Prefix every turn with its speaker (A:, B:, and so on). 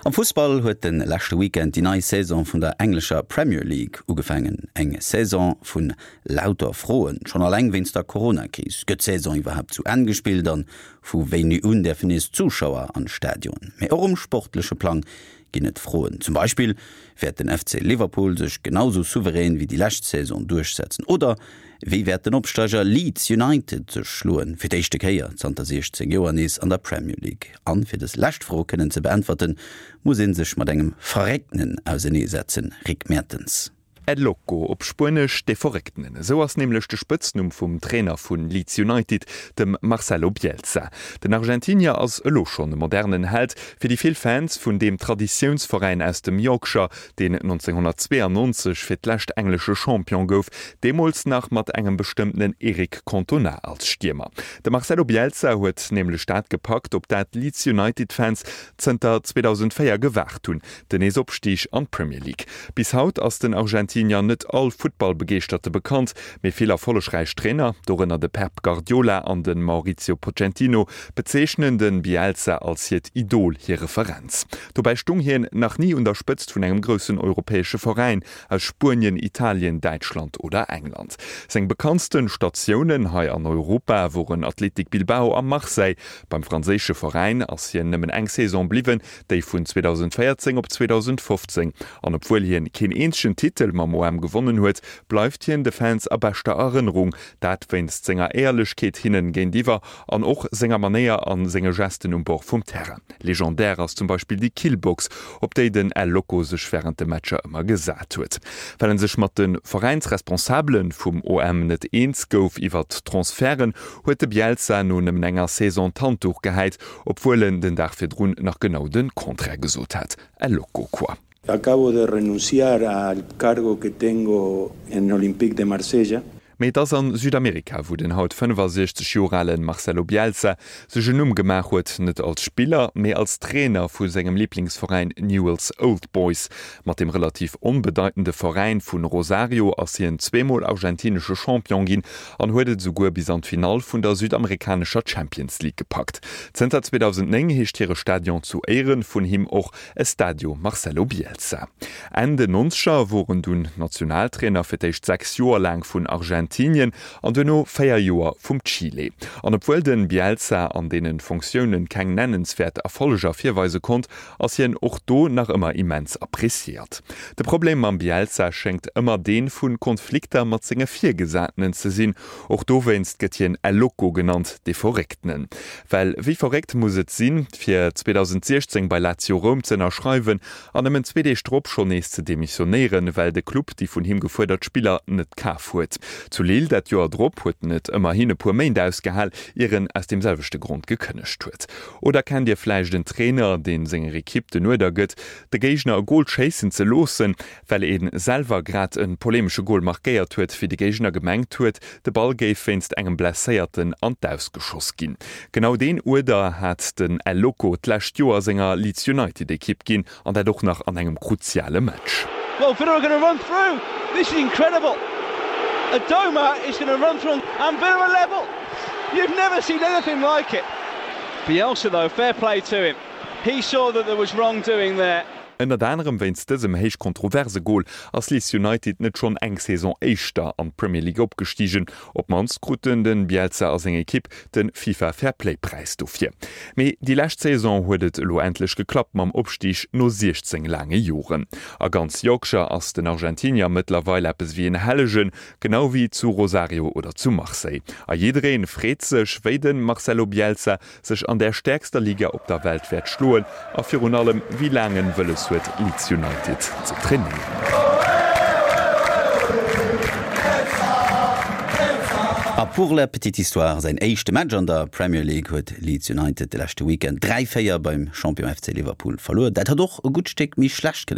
A: Am Fussball huet de leschte Weekend déi nei Saison vun der englescher Premier League ugefaangen. Eng Saison vun lauter Froen, schonn alleng wéinst der Corona-Kris. Gëtt d'Saison iwwerhaapt zu Enn gespillt an vu wéini un däerfen nees Zuschauer an d'Stadionen? Mee och um sportleche Plang ginn et Froen. Zum Beispill, Wäert den FC Liverpool sech genau sou souverän wéi déi lescht Saison duerchsetzen? Oder wéi wäert den Opsteiger Leeds United sech schloen, fir d'éischte Kéier zanter 16 Joer nees an der Premier League? An fir dës lescht Fro kënnen ze beäntwerten, muss ee sech mat engem Verrécktenen auseneesetzen, Rick Mertens.
B: El Loco, op Spuenesch de Verrécktenen, esou ass nämlech de Spëtznumm vum Trainer vu Leeds United, dem Marcelo Bielsa. Den Argentinier ass elo schonn e modernen Held fir déi vill Fans vun deem Traditiounsveräin aus dem Yorkshire, deen 1992 fir d'lescht englesche Champion gouf, deemools nach mat engem bestëmmtenen Eric Cantona als Stiermer. De Marcelo Bielsa huet nämlech dat gepackt, op dat d'Leeds United-Fans zënter 2004 gewaart hunn, Den Neesopstig an d'Premier League. Bis haut ass den Argentinier net all Futtballbegeeschterte bekannt, mee vill erfollegräich Trainer, dorënner de Pep Guardiola an de Maurizio Pochettino, bezeechnen de Bielsa als hiert Idol, hir Referenz. Dobäi stung hien nach ni un der Spëtzt vun engem groussen europäesche Veräin aus Spuenien, Italien, Däitschland oder England. Seng bekanntste Statiounen hei an Europa woren Athletic Bilbao a Marseille. Beim franséische Veräin ass hien nëmmen eng Saison bliwwen, déi vun 2014 op 2015, an obwuel hien keen eenzegen Titel mam OM gewonnen huet, bleift hien de Fans a beschter Erënnerung, dat wéinst senger Éierlechkeet hinnen géintiwwer an och senger Manéier a senge Gesten um Bord vum Terrain. Legendär ass zum Beispill déi Killbox, op déi den El Loco sech wärend de Matcher ëmmer gesat huet. Well en sech mat de Veräinsresponsabele vum OM net eens gouf iwwert d'Transferten, huet de Bielsa no nëmmen enger Saison d'Handduch gehäit Obwuel en den Dag virdrun nach genau de Contraire gesot hat. El loco quoi.
C: Acabo de renunciar al cargo que tengo en Olympique de Marsella.
B: Mee et ass an Südamerika, wou den haut 65 Joer alen Marcelo Bielsa sech en Numm gemaach huet, net als Spiller, mee als Trainer vu sengem Liblingsveräin Newell's Old Boys. Mat dem relativ onbedeitende Veräin vu Rosario ass hien zweemol argentinesche Champion ginn an huet et esouguer bis an d'Finall vun der südamerikanescher Champions League gepackt. Zënter 2009 heescht hire Stadion zu Éiere vun him och Estadio Marcelo Bielsa. Enn den Nonzeger wor en dunn Nationaltrainer, fir d'éischt 6 Joer laang vun Argentinien an duerno 4 Joer vum Chile. An obwuel de Bielsa an deene Fonctiounen keng nennenswäert Erfolleger virweise konnt, ass hien och do nach ëmmer immens appreciéiert. De Problem mam Bielsa schéngt ëmmer dee vu Konflikter mat senge Virgesatenen ze sinn. Och dowéinst gëtt hien El Loco genannt, dee Verrécktenen. Well wéi verréckt muss et sinn, fir 2016 bei Lazio Roum ze ënnerschreiwen an nëmmen zwee Deeg drop schonn nees ze demissionéieren, well de Club déi vun him gefuerdert Spiller net kaf huet. Zu Lille dat Joer drop huet en et ëmmerhin e puer Méint ausgehal, ier en aus deem selwechte Grond gekënnegt huet. Oder kennt Dir vläicht en Trainer, deen senger Ekipp den Uerder gëtt, de Géigner e Gol schéissen ze loossen, well ee selwer grad e polemesche Gol markéiert huet, wéi de Géigner gemengt huet, de Ball géif wéinst engem Blesséierten an d'Aus geschoss ginn? Genau deen Uerder hat den El Loco d'lescht Joer senger Leeds United Ekipp ginn, an dat och nach an engem kruziale Match.
D: Well Villa are gonna run through, this is incredible, Adomah is gonna run through and Villa are level, you've never seen anything like it. Bielsa though, fair play to him, he saw that there was wrongdoing there.
B: Ënnert anerem wéinst dësem héich kontroverse Gol ass Leeds United net schonn eng Saison éischter an d'Premier League opgestigen. Op d'mannst kruten de Bielsa a seng Ekipp de FIFA Fair Play Präis dofir. Mee déi lescht Saison huet et elo endlech geklappt mam Opstig no 16 laange Joren. A ganz Yorkshire ass den Argentinier mëttlerweil eppes ewéi en Hellegen, genau wéi zu Rosario oder zu Marseille. A jidderee freet sech, wéi de Marcelo Bielsa sech an där stäerkster Liga op der Welt wäert schloen a virun allem wéi laang en wëlles huet Leeds United ze trainéieren.
A: A pour la petite histoire, säin éischte Match an der Premier League huet Leeds United de leschte Weekend 3, 4 beim Champion FC Liverpool verluer. Dat hätt och e gutt Stéck méi schlecht kënnen.